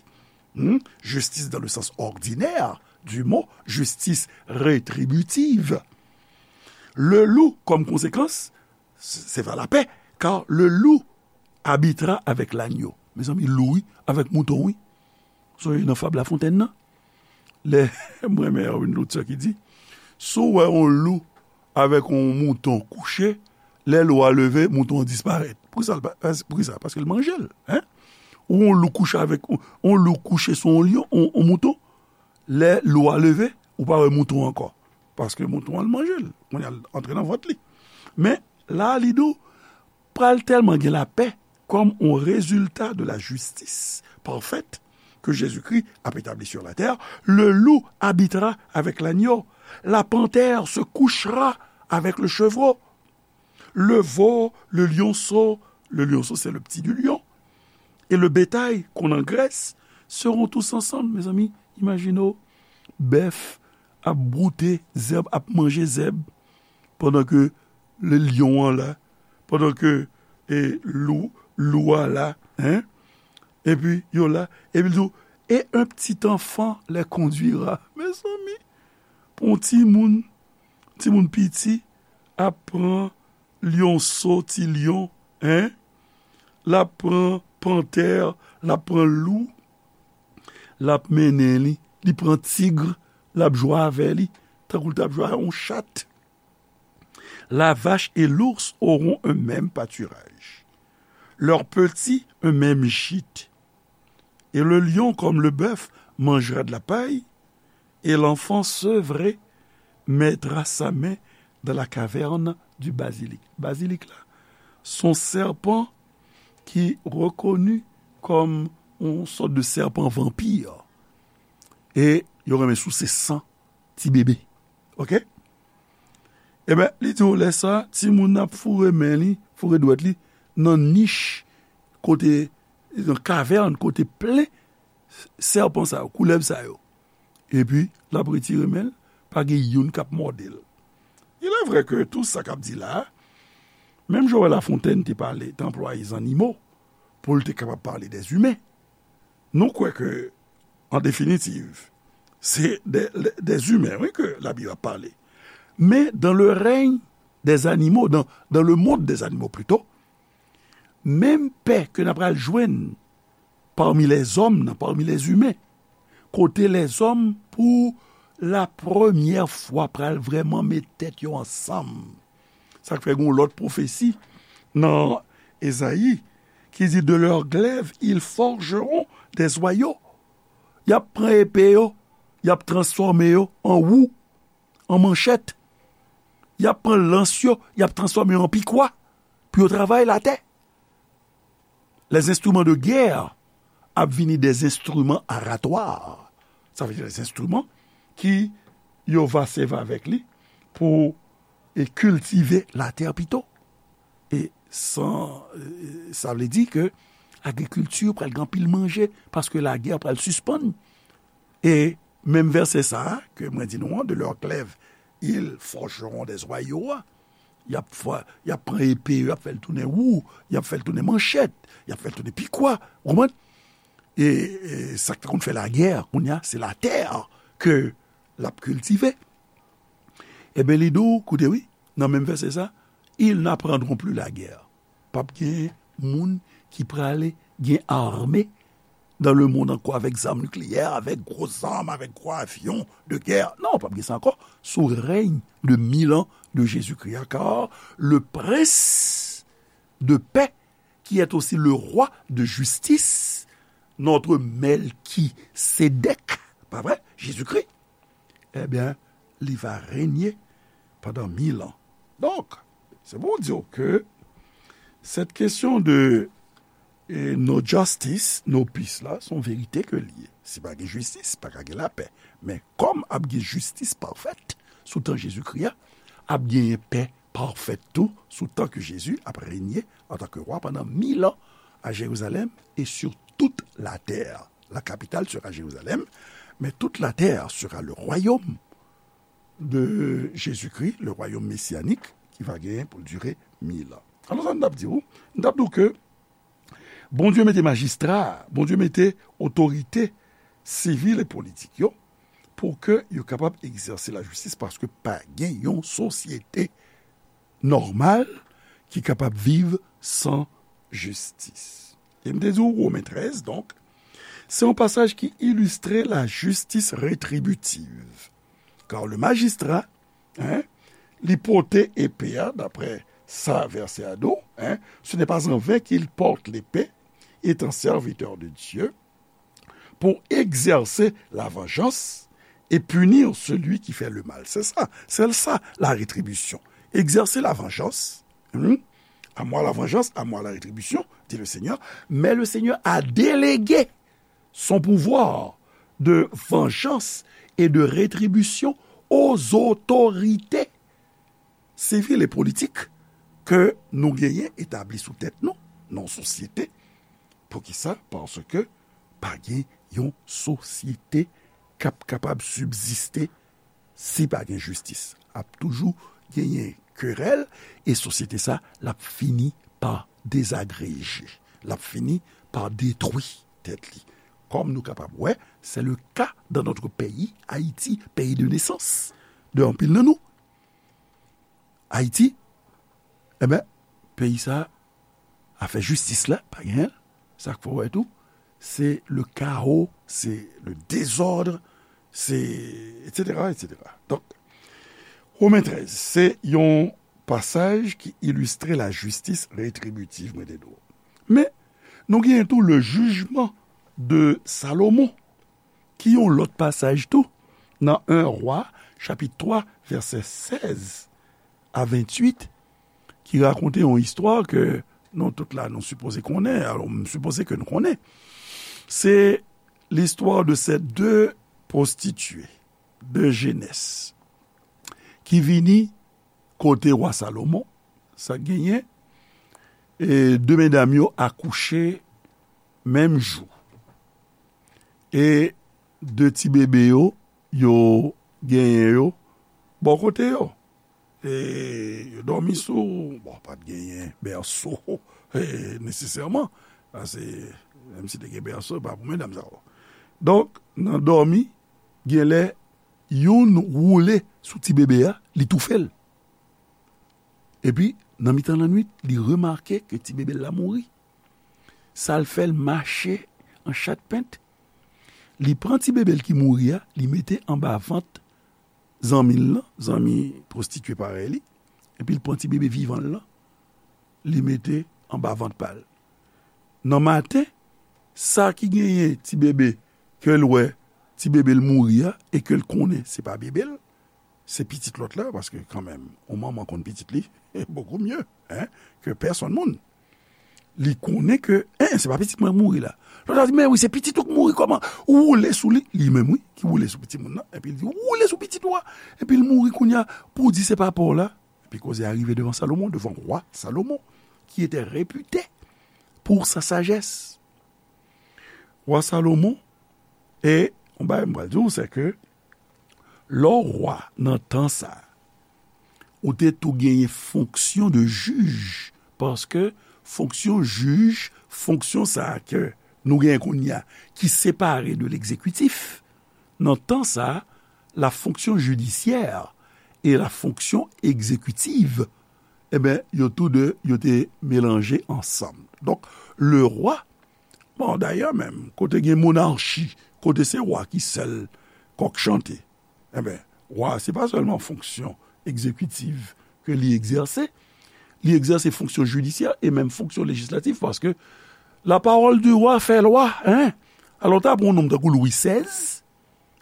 hmm, justice dans le sens ordinaire du mot, justice rétributive. Le loup, comme conséquence, c'est vers la paix, car le loup habitera avec l'agneau. Mezanmi, lou wi, avèk mouton wi. Sonje nan fab Lafontèn nan. Lè, mwen renmen yon lotè ki di, si w wè yon lou avèk yon mouton kouche, lè lou a leve, mouton an disparèt. Poukisa l pa, poukisa? Paske l manje l, en. Ou yon lou kouche avèk, yon lou kouche sou yon lyon, yon, yon mouton, lè lou a leve, ou pa wè mouton ankò. Paske mouton an manje l. Kounye a l antre nan vant li. Men, la, li di w, pral tèlman gen lapè comme un résultat de la justice parfaite que Jésus-Christ a établie sur la terre, le loup habitera avec l'agneau, la panthère se couchera avec le chevreau, le veau, le lionceau, le lionceau c'est le petit du lion, et le bétail qu'on engraisse seront tous ensemble, mezanmi, imajine w, bèf ap broute zèb, ap manje zèb, pandan ke le lyon an la, pandan ke e, lou, lou a la, en, epi yo la, epi l di w, et un petit enfant les conduira. Mezanmi, pou yon timoun, timoun piti ap pran lyonso, ti lyon, en, l ap pran pantè, l ap pran lou, l ap mennen li, li pran tig, l ap jwe avè li, tankou l t ap jwe a yon chat. La vache et l'ours auront un même pâturage, leurs petits un même gîte. Et le lion comme le bœuf mangera de la paille, et l'enfant sevré mettra sa main dans la caverne du basilic. Basilic la, se yon sèpan ki rekoni kòm yon sòt de sèpan vanpi. E yo renmen souse san ti bebe. Oke? Ebyen, li di w lè sa, timoun nan ap foure men li, foure dwèt li nan nich kote, nan kavèn kote plen sèpan sa yo, koulèv sa yo. Epi, l ap retire men l, pa gen youn k ap mòde l. Il est vrai que tout sa k ap di la a, menm Joël Lafontaine te pale, te anplwaye zannimo pou l te kapab pale dèzimen. Nou kwè ke, an definitiv, se de, de, dèzimen, wi, ke Labib ap pale. Men, dans le règne des animaux, dans, dans le monde des animaux plutôt, menm pè ke n ap pral jwenn pami lèzòm nan, pami lèzimen, kote lèzòm pou la premyè fwa pral vrèman met tèt yo ansanm. Sa k fè gen yon lòt pwofesi nan Ezayi ki di, de leurs glaives, ils forgeront des hoyaux. Y ap pran epe yo, y ap transfòme yo an wou, an manchèt. Y ap pran lans yo, y ap transfòme yo an pikwa pou yo travay latè. Les instruments de guerre ap vini des instruments aratoires. Sa vle di les instruments ki yo va sèvi avèk li pou e kiltive latè pito. E san, e, sa vle di ke agrikilti pral gen anpil manje paske lagè pral sispann. E menm vèsè sa a ke mwen di nou an, de leurs glaives, ils forgeront des hoyaux a, y ap fè, y ap pran epe yo, y ap fè l tounen wou, y ap fè l tounen manchèt, y ap fè l tounen pikwa, ou konprann? E, e sa k te konn fè lagè, kounye a, se latè ke l ap kiltive. Ebyen, li di w, koute wi, nan menm vèsè sa, ils n'apprendront plus la guerre. P ap gen moun ki prale gen ame dans le monde ankò avèk zam nikleyè, avèk gwo zam, avèk gwo avyon de guerre. Non, p ap gen sa ankò. Sou règne de mille ans de Jésus-Christ, car le prince de paix, qui est aussi le roi de justice, notre Melchisédek, pa vre? Jésus-Christ, ebyen, li va renye pandan mil an. Donk, se pou w di w ke cette question de, e, no justice, no peace la, se yon verite ke l ye. Si pa gen jistis, pa ka gen lapè. Men kòm ap gen jistis pafèt sou tan Jezikri a, ap genyen pè pafèt tou sou tan ke Jezi ap renye antanke wa pandan mil an à Jérusalem et sur toute la terre. La capitale sera Jérusalem, mais toute la terre sera le royaume de Jésus-Christ, le royaume messianique, ki va genyen pou l dire mil an. Alò, sa m t ap di w, m t ap di w ke Bondye mete majistra, Bondye mete otorite sivil e politik yo pou ke yo kapab egzèse lajistis, paske pa gen yon sosyete nòmal ki kapab viv san jistis. E m te di w, Women trèz, donk, se yon pasaj ki ilistre lajistis retribitiv. Kar le majistra, hein, li pote epe a, daprè sa vèsè a di w, hein, ce n'est pas en vain qu'il porte l'épée, étant serviteur de Dieu, pour exercer la vengeance et punir celui qui fait le mal. C'est ça, c'est ça la rétribution. Exercer la vengeance. Hmm? À moi la vengeance, à moi la rétribution, dit le Seigneur. Mais le Seigneur a délégué son pouvoir de vengeance et de rétribution aux autorités civiles et politiques ke nou genyen etabli sou tèt nou, nan yon sosyete. Poukisa? Paske pa gen yon sosyete k ap kapab sibziste si pa gen jistis. Ap toujou genyen kerèl, e sosyete sa, l ap fini pa dezagreje. L ap fini pa detwi tèt li. Kòm nou kapab wè, c'est le cas dans notre pays, Haïti, pays de naissance de anpil nan nou. Ayiti, enben, peyi sa, afè jistis la, pa genyen l. Sa k fè w wè tou, se le kawo, se le dezòd, se, etsetera, etsetera. Donk, Women trèz, se yon pasaj ki ilistre lajistis retribitiv, mwen te di w. Men, nou genyen tou le jugement de Salomon, ki yon lòt pasaj tou, nan en Wa, chapit twa, vèsè sèz a venntuit, ki rakonte yon istwa ke nou tout la, nou sipoze konnen, alò, m sipoze ke nou konnen. Se l'histoire de ces deux prostituées de Jénès ki vini kote wa Salomon, sa k genyen, e de medam yo akouche menm jou. E de ti bebe yo, yo genyen yo bò kote yo. E yo dòmi sou, bon, pa t genyen bèso, e, nesesèman. Paske, menm si te gen bèso, e pa pou medam sa yo. Donk, nan dòmi, genlè, youn woule sou ti bebe a, li toufe l. Epi, nan mitan lannwit, li remake ke ti bebe l la mouri. Sa l fè, l mache an chat pent. Li pran ti bebe l ki mouri a, li mete anba vant zanmi l lan, zanmi pwostitye parèy li, epi l pran ti bebe vivan l lan, li mete anba vant pa l. Nan maten, sa ki genyen ti bebe ke l wè, ti bebe l mouri a, e ke l konnen se pa bebe l, se pitit lòt la, paske kanmenm, yon manman konn pitit li, beaucoup mieux, hein, ke pèsonn moun. Li konnen ke, en, se pa pitit mwen k mouri la. Lòt la di, men wi, se pitit ou k mouri, kòman? Ou woule sou li, li menm wi, ki woule sou pitit moun nan, epi l di, ou woule sou pitit ou a, epi l mouri kounye a, pou w di se pa pa w la. Epi koze a rive devan Salomon, devan wa Salomon, ki te repite pou sa sajès. Wa Salomon, e yon bagay m pral di w, se ke lè w wa nan tan sa a, ou te tou genyen fonksyon de jij, paske fonksyon jij, fonksyon sa a ke nou genyen kounye a, ki separe de legzekitif, nan tan sa a, la fonction judiciaire et la fonction exécutive, enben, yo tou de, yo te melanje ansanm. Donk, le rwa, bon, dayè menm, kote gen monachi, kote se wa ki sèl kòk chante, enben, wa, se pa sèlman fonksyon egzekitiv ke li egzèse, li egzèse fonksyon jidisyè e menm fonksyon lejislatif, paske la parole du roi fait loi, hein? Alò, ta pran yon nonm tankou Lwi sèz,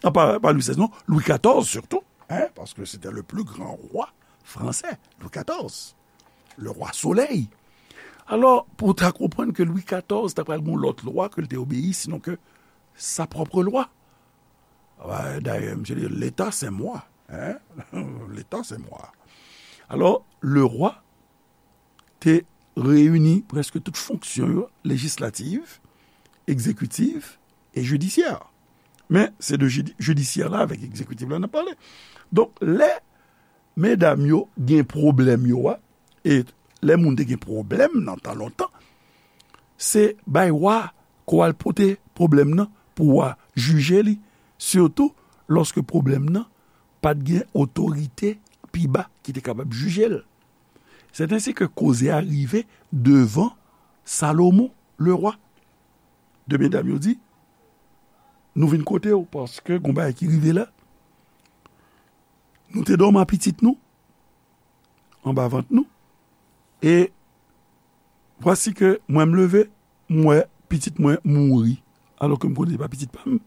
ah, pas, pas Louis seize, non, Louis quatorze surtout, hein, parce que c'était le plus grand roi français, Louis quatorze, le roi soleil. Alò, pou w ta konprann ke Lwi katòz ta pral gen yon lòt lwa ke l te obeyi, sinon ke sa pwòp lwa. Dayè, misye di, L'État, c'est moi. Hein? L'État, c'est moi. Alò, le rwa te reyini prèske tout fonksyon yo, lejislatif, egzekitif e jidisyè. Men, se de jidi-, jidisyè la avèk egzekitif la n ap pale. Donk, lè medam yo gen pwoblèm yo a, e lè moun te gen pwoblèm nan tan lontan, se bay wa ke w al pote pwoblèm nan pou wa jije li, sitou lòske pwoblèm nan pa t gen otorite pi ba ki te kapab jije l. C'est ainsi que koze a rive devan Salomon, le roi. De medam yo di, nou vin kote w, paske gon bagay ki rive la. Nou te dòmi ak pitit nou anba vant nou, e vwasi ke mwen m leve, m wè pitit mwen mouri, alò ke m konnen se pa pitit pa m.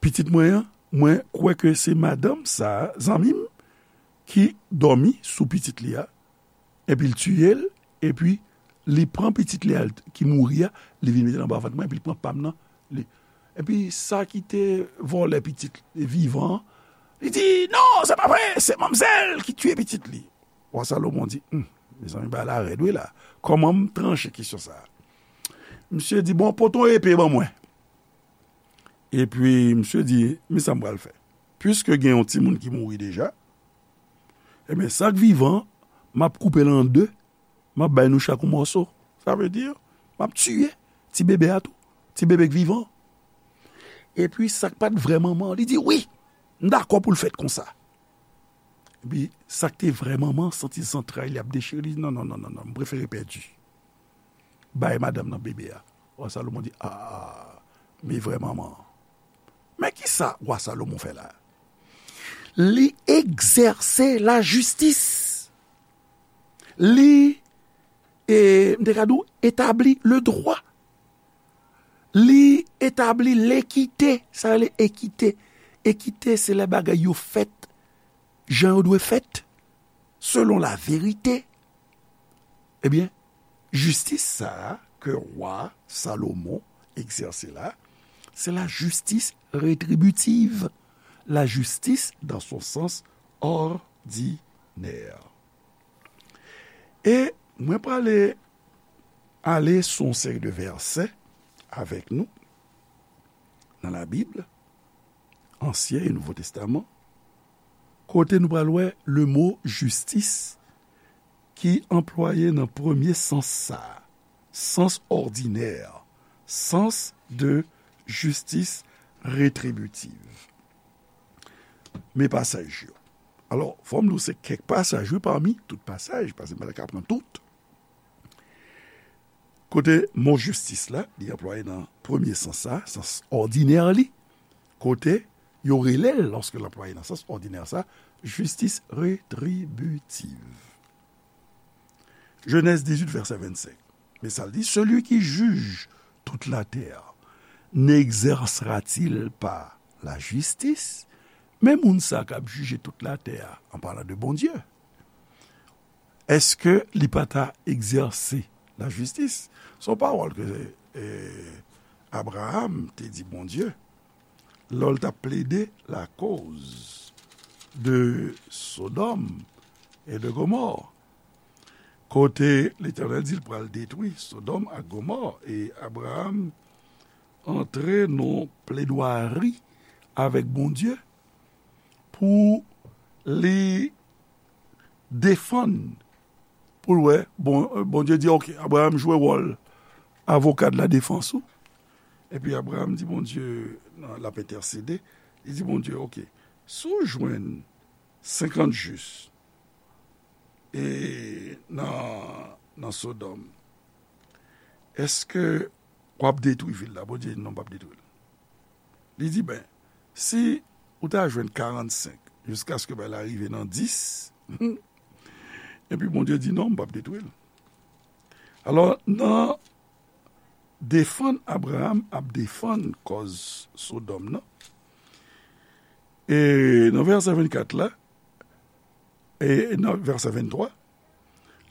Pitit mwen an, mwen kwè ke se madanm sa a, zanmi m, ki dòmi sou pitit li a, epi l tiye l, epi li pran pitit li a ki mouri a, li vin mete l anba vant mwen, epi li pran pa m nan, li. Epi sa ki te vòlè pitit vivan an, li di, non, se pa vre, se manmzèl ki tiye pitit li. Wa Salomon di, hmm, mezanmi, bagay la rèd wi la. Kòman m tranche kesyon sa a? Misye di, bon, pote yon epe ban mwen. Epi misye di, men sa m pral fè. Piske gen yon timoun ki mouri deja, ebyen, sa k vivan, m ap koupe l an de, m ap bay nou chak yon mòso. Sa vle di, m ap tiye ti bebe a tou, ti bebe k vivan. Epi sa k pa t vrè manman an, li di, wi, m dakò pou l fèt konsa. Epi sa k te vrè manman an santi zantray li ap dechire, li di, non, non, non, non, non, m prefere pèdi. Bay madanm nan bebe a. Wa Salomon di, a, men vrè manman an. Men kisa wa Salomon fè la? Li egzèse lajistis. Li, e, m te ka di w, etabli le droit. Li etabli lekite. Sa rele ekite. Ekite, se lè bagay yo fèt jan yo dwe fèt, selon la verite. Ebyen, jistis sa a ke wa Salomon egzèse la, se la justice rétributive, la justice dans son sens ordinaire. E mwen prale ale sou yon seri de vèsè avèk nou nan Labib, Ansyen e Nouvo Testaman, kote nou pral wè le mo jistis ki anplwaye nan premye sans sa a, sans òdinè, sans de justice rétributive. Men pasaj yo. Alò, fò m di w se kèk pasaj, wi, pami tout pasaj, paske m pa ta ka pran tout. Kote mo jistis la, li anplwaye nan premye sans sa, sans òdinè li, kote yo rele l, lòske l anplwaye nan sans òdinè sa, justice rétributive. Genèse dix-huit, verset vingt-cinq. Men sa l di, celui qui juge toute la terre n'exercera-t-il pas la justice? Men moun sa k ap jije tout latè a, an palan de Bondye, èske li pa ta egzèse lajistis? Se yon pawòl ke, e, Abraham te di Bondye lè l t ap plede lakoz de Sodòm e de Gomò, kote Letènèl di l pral detwi Sodòm ak Gomò, e Abraham antre nan pledwari avèk Bondye pou li defann, pou l wè, bon, Bondye di, ok, Abraham jwe wòl avoka de la defans ou. Epi Abraham di Bondye, nan, l ap entèsede, li di Bondye, ok, si w jwenn senkant jis, e nan, nan Sodòm, èske w ap detwi vil la? Bondye di, non, m p ap detwi l. Li di, ben, si ou ta jwenn karannsenk, jiskaske bagay la rive nan dis, epi Bondye di, non, m p ap detwi l. Alò, nan defann Abraham ap defann kòz Sodòm nan, e nan vèsè vennkat la, e nan vèsè venntwa,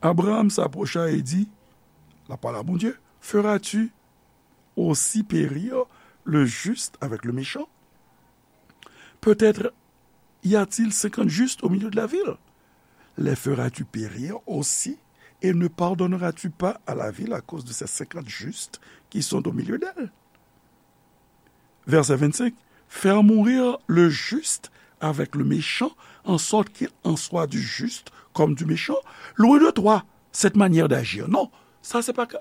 Abraham s'approcha et dit, la parole à Bondye, feras-tu aussi périr le juste avec le méchant? Peut-être y a-t-il cinquante justes au milieu de la ville? Les feras-tu périr aussi et ne pardonneras-tu pas à la ville à cause de ces cinquante justes qui sont au milieu d'elle? Verset vingt-cinq, faire mourir le juste avec le méchant, en sorte qu'il en soit du juste comme du méchant. Loin de toi cette manière d'agir. Non, sa se pa ka,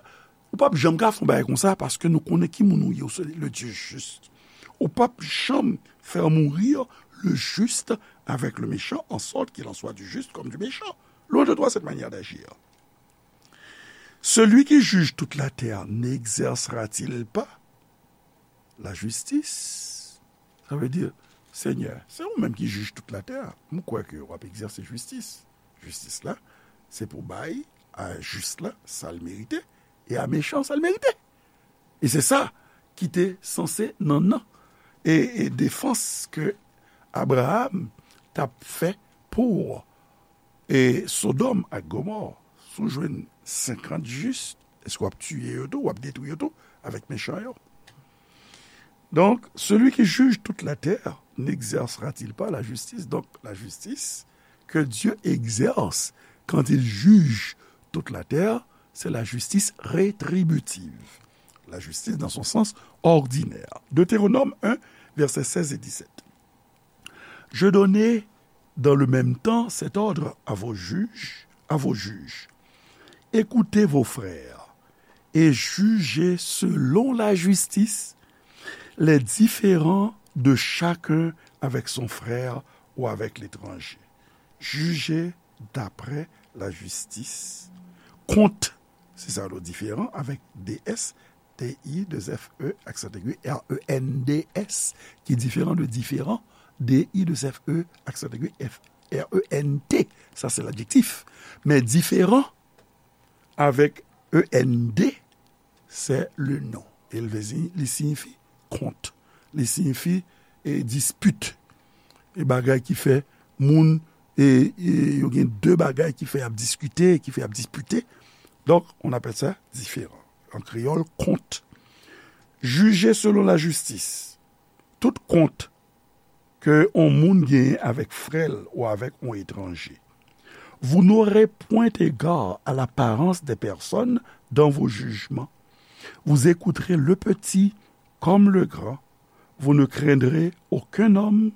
ou p ap janm ka fè yon bagay konsa, paske nou konnen ki moun ou ye, ou se le Dieu juste. Ou p ap janm faire mourir le juste avec le méchant, en sorte qu'il en soit du juste comme du méchant. Loin de toi cette manière d'agir. Celui qui juge toute la terre n'exercera-t-il pas la justice? Sa vle di, Senyè, se ou menm ki jij tout latè. M kwè ke w ap egzèse jistis. Jistis la, se pou bay a jis la sa l merite, e a mechan sa l merite. E se sa ki te sanse nan nan e, e defans ke Abraram t ap fè pou e Sodòm ak Gomò. Si w jwenn senkant jis, èske w ap tiye yo tou, w ap detwi yo tou avèk mechan yo? Donc, celui qui juge toute la terre n'exercera-t-il pas la justice? Donc, la justice que Dieu exerce quand il juge toute la terre, c'est la justice rétributive. La justice dans son sens ordinaire. Deutéronome un, versets seize et dix-sept. Je donnai dans le même temps cet ordre à vos juges, à vos juges. Écoutez vos frères et jugez selon la justice les différends de chacun avec son frère ou avec l'étranger. Jugez d'après la justice. Kont, se sa yo diferan avèk D S, T I, deux F E, aksan aigu, R E N D S, ki diferan de diferan, D I, deux F E, aksan aigu, F, R E N T, sa se ladjektif. Men diferan avèk E N D, se le non. E l vle di, li siyifi kont. Li siyifi, e, dispit. E bagay ki fè moun, e, e, yo gen de bagay ki fè y ap diskite, ki fè y ap dispite. Donk, on appelle ça différend. An kreyòl, kont. Jije selon lajistis. Tout kont ke on moun genyen avèk frè l ou avèk on etranje. Vous n'aurez point égard à l'apparence des personnes dans vos jugements. Vous écouterez le petit comme le grand. Vous ne craindrez aucun homme,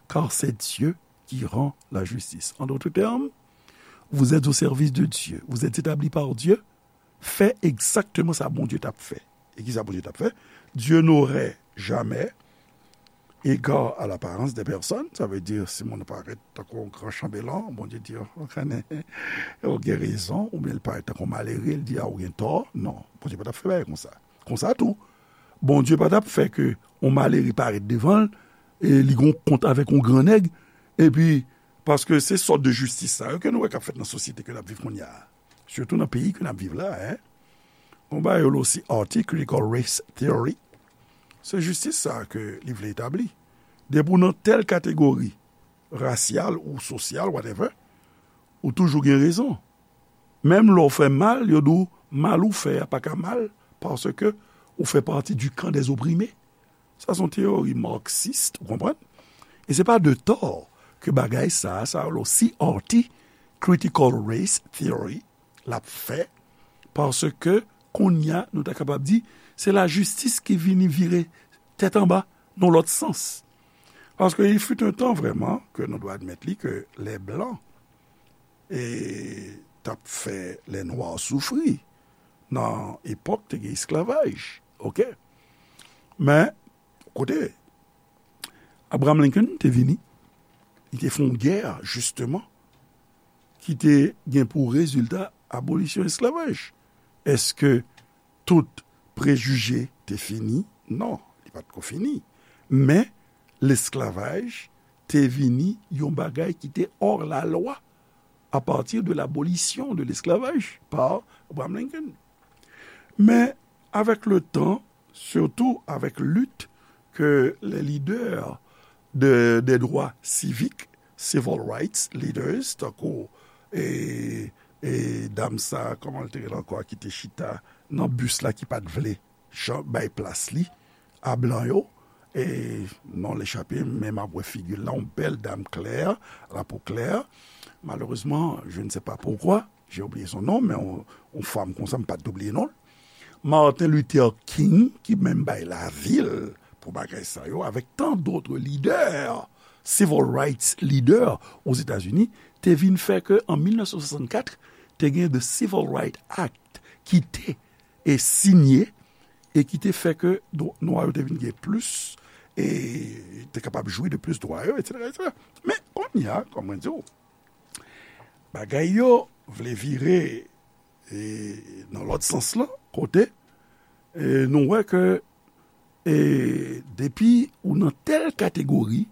car c'est Dieu qui rend la justice. En d'autres termes, vous êtes au service de Dieu. Vous êtes établi par Dieu. Fè egzakteman sa Bondye t ap fè. E ki sa Bondye t ap fè? Dieu n'aurait jamais égard à l'apparence des personnes. Sa vle di, si moun parèt tankou yon gran chanbelan, Bondye di, "Ou konnen, ou gen rezon," oubyen l parèt tankou malere, l di, "A, ou gen tò." Non, Bondye pa t ap fè bagay konsa. Konsa tou, Bondye pa t ap fè ke yon malere parèt devan l, e li gen yon kont avèk yon gran nèg, epi, paske se sòt de jistis sa yo ke nou wè k ap fèt nan sosyete ke n ap viv kounye a. Sitou nan peyi ke n ap viv la, en. Gon bagay yo rele osi Arty, critical race theory. Se jistis sa ke li vle etabli. Depi w nan tèl kategori rasyal ou sosyal, whatever, ou toujou gen rezon. Menm lè w fè mal, yo di w mal ou fè a pa ka mal, paske ou fè pati du camp des opprimés. Sa se yon teyori marxist, ou konprann? E se pa de tò ke bagay sa a, sa yo rele osi Arty, critical race theory, l ap fè, paske kounye a, nou ta kapab di, se lajistis ki vini vire tèt anba nan lòt sans. Paske il fut un temps vraiment, ke nou dwe admèt li, ke les blancs, e, t ap fè les noirs soufri nan epòk te gen esklavaj, oke? Men, kote Abraham Lincoln te vini, li te fè yon gè, jisteman, ki te gen pou rezilta abolisyon esklavaj. Èske tout prejije te fini? Non, li pa t ko fini. Men, lesklavaj te vini yon bagay ki te hors la loi à partir de l'abolition de l'esclavage par Abraham Lincoln. Men, avèk le tan, sitou avèk lit ke les leaders de, des droits civiques, civil rights leaders, tankou, e, e dam sa, kòman l te rele ankò, ki te chita nan bis la, ki pa t vle jan bay plas li a blan yo. E non l echape m, men m ap wè figi l la, yon bèl dam klè, lapo klè. Malheureusement, je ne sais pas pourquoi, j'ai oublié son nom, men yon, yon fanm konsa, m pa t doubliye non l. Martin Luther King, ki menm bay lavi l pou bagay sa yo, avèk tant d'autres leaders, civil rights leaders Ozetazini, te vin fè ke an mil nèf san swasannkat, te gen the Civil Rights Act ki te e sinye e ki te fè ke dwa, nwa yo te vin gen plis e te kapab jwi de plis dwa yo, etsetera, etsetera. Men, kounye a, kòm mwen di w, bagay yo vle vire, e, nan lòt sans lan, kote, e, nou wè ke, e, depi ou nan tèl kategori,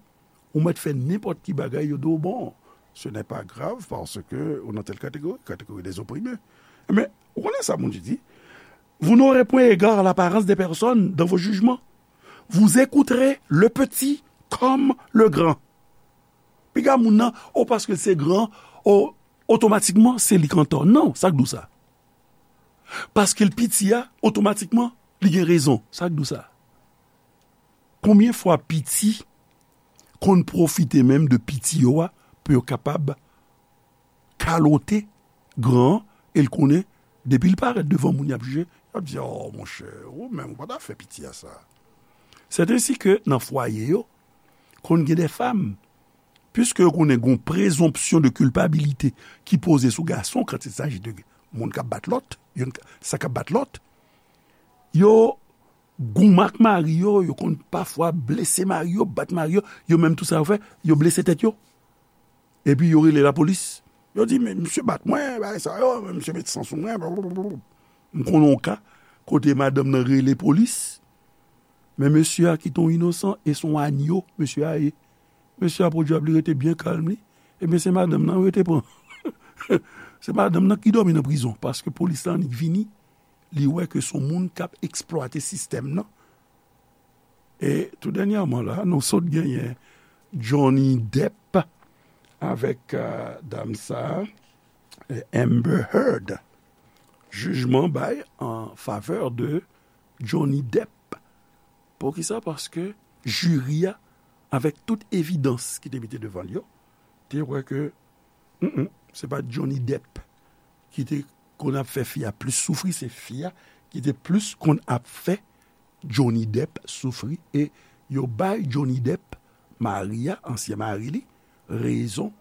ou mèt fè nenpòt ki bagay, yo di w, bon, ce n'est pas grave parce que ou nan tèl kategori, catégorie des opprimés. Men, ou konnen sa moun di, vous n'aurez point égard à l'apparence des personnes dans vos jugements. Vous écouterez le petit comme le grand. Piga moun nan, o, paske l se gran, o, otomatikman, se li k antò. Non, sa k di w sa? Paske l piti a, otomatikman, li gen rezon. Sa k di w sa? Konbyen fwa piti konn pwofite menm de piti yo a pou yo kapab kalote gran an, e l konnen, depi l parèt devan moun y ap jije, y ap di, "Oh, monchè, ou menm, ou pa ta fè piti a sa." C'est ainsi que nan fwaye yo, konn gen de fanm, puiske yo konnen gon présomption de culpabilité ki poze sou gason quand il s'agit de moun k ap bat lòt, youn k-, sa k ap bat lòt, yo goumen ak mari yo, yo konn pafwa blese mari yo, bat mari yo, yo menm tou sa yo fè, yo blese tèt yo. Epi yo rele lapolis. Yo di, "Men misye bat mwen, bagay sa yo, men misye met san sou mwen, blablabla." M konnen yon ka, kote madanm nan rele polis, men mesye a ki te yon inosan, e se yon anyo, mesye a ye. Mesye a pwodui ap li rete byen kalm li. Ebyen, se madanm nan yo te pran. Se madanm nan ki dòmi nan prizon, paske polis la annik vini, li wè ke se yon moun k ap eksplwate sistèm nan. E tou dènyèman la, nou sot genyen Johnny Depp avèk, euh, dam sa, euh, Amber Heard. Jijman bay an favè de Johnny Depp. Poukisa? Paske jiri a, avèk tout evidans ki te mete devan l yo, te wè ke, mm, mm, se pa Johnny Depp ki te konn ap fè fi a plis soufri, se fi a ki te plis konn ap fè Johnny Depp soufri, e yo bay Johnny Depp, mari a, ansyen mari li, rezon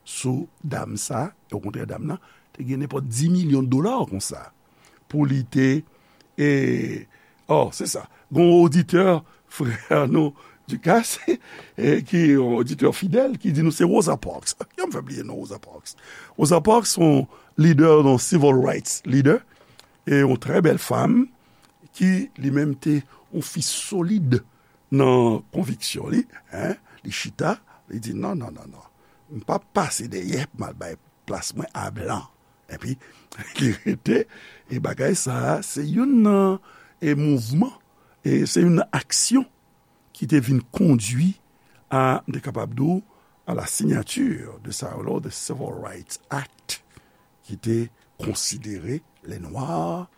sou dam sa, okontrè dam nan te gen nenpòt dis milyon dola konsa pou li te, e, oh, se sa. Gon oditè, frè nou, Ducasse, e, ki yon oditè fidèl, ki di nou se Rosa Parks. Kijan m fè bliye non Rosa Parks? Rosa Parks se yon lidè, yon civil rights leader, e yon trè bèl fanm, ki li menm te yon fi solid nan konviksyon li, en, li chita, li di, "Non, non, non, non. M p ap pase dèyè pou m al bay plas mwen a blan." Epi, li rete, e bagay sa a, se youn nan, e mouvman, e se youn nan aksyon ki te vin kondui a, m te kapab di w, à la signature de sa yo la, the Civil Rights Act, ki te konsidere les Noirs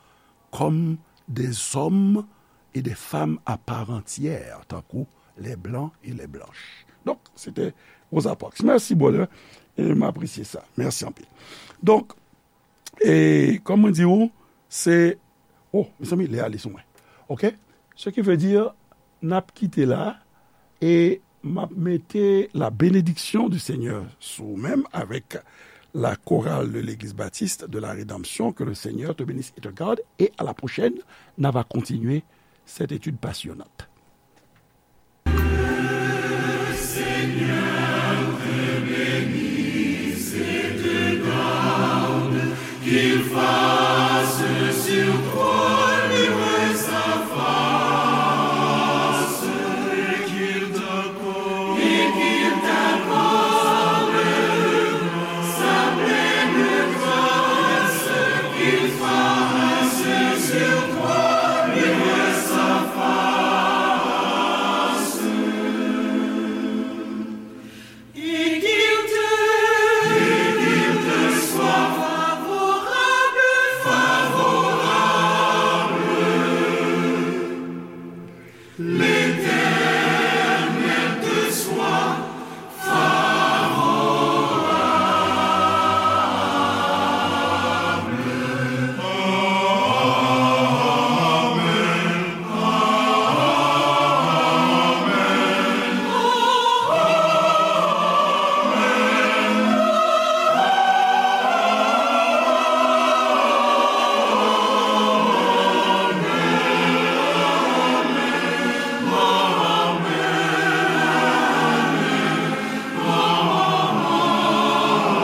comme des hommes et des femmes à part entière, tankou les Blancs et les Blanches. Donk, se te Rosa Parks. Mèsi, brother. E m apresye sa. Mèsi anpil. Donk, e kòm mwen di w, se, oh, mezanmi, lè ale sou mwen. Oke? Ce qui veut dire, n ap kite la, e m ap mete la bénédiction du Seigneur sou ou menm avèk la chorale de l'Église Baptiste de la Rédemption, que le Seigneur te bénisse et te garde, et à la prochaine, n a va continuer cette étude passionnante.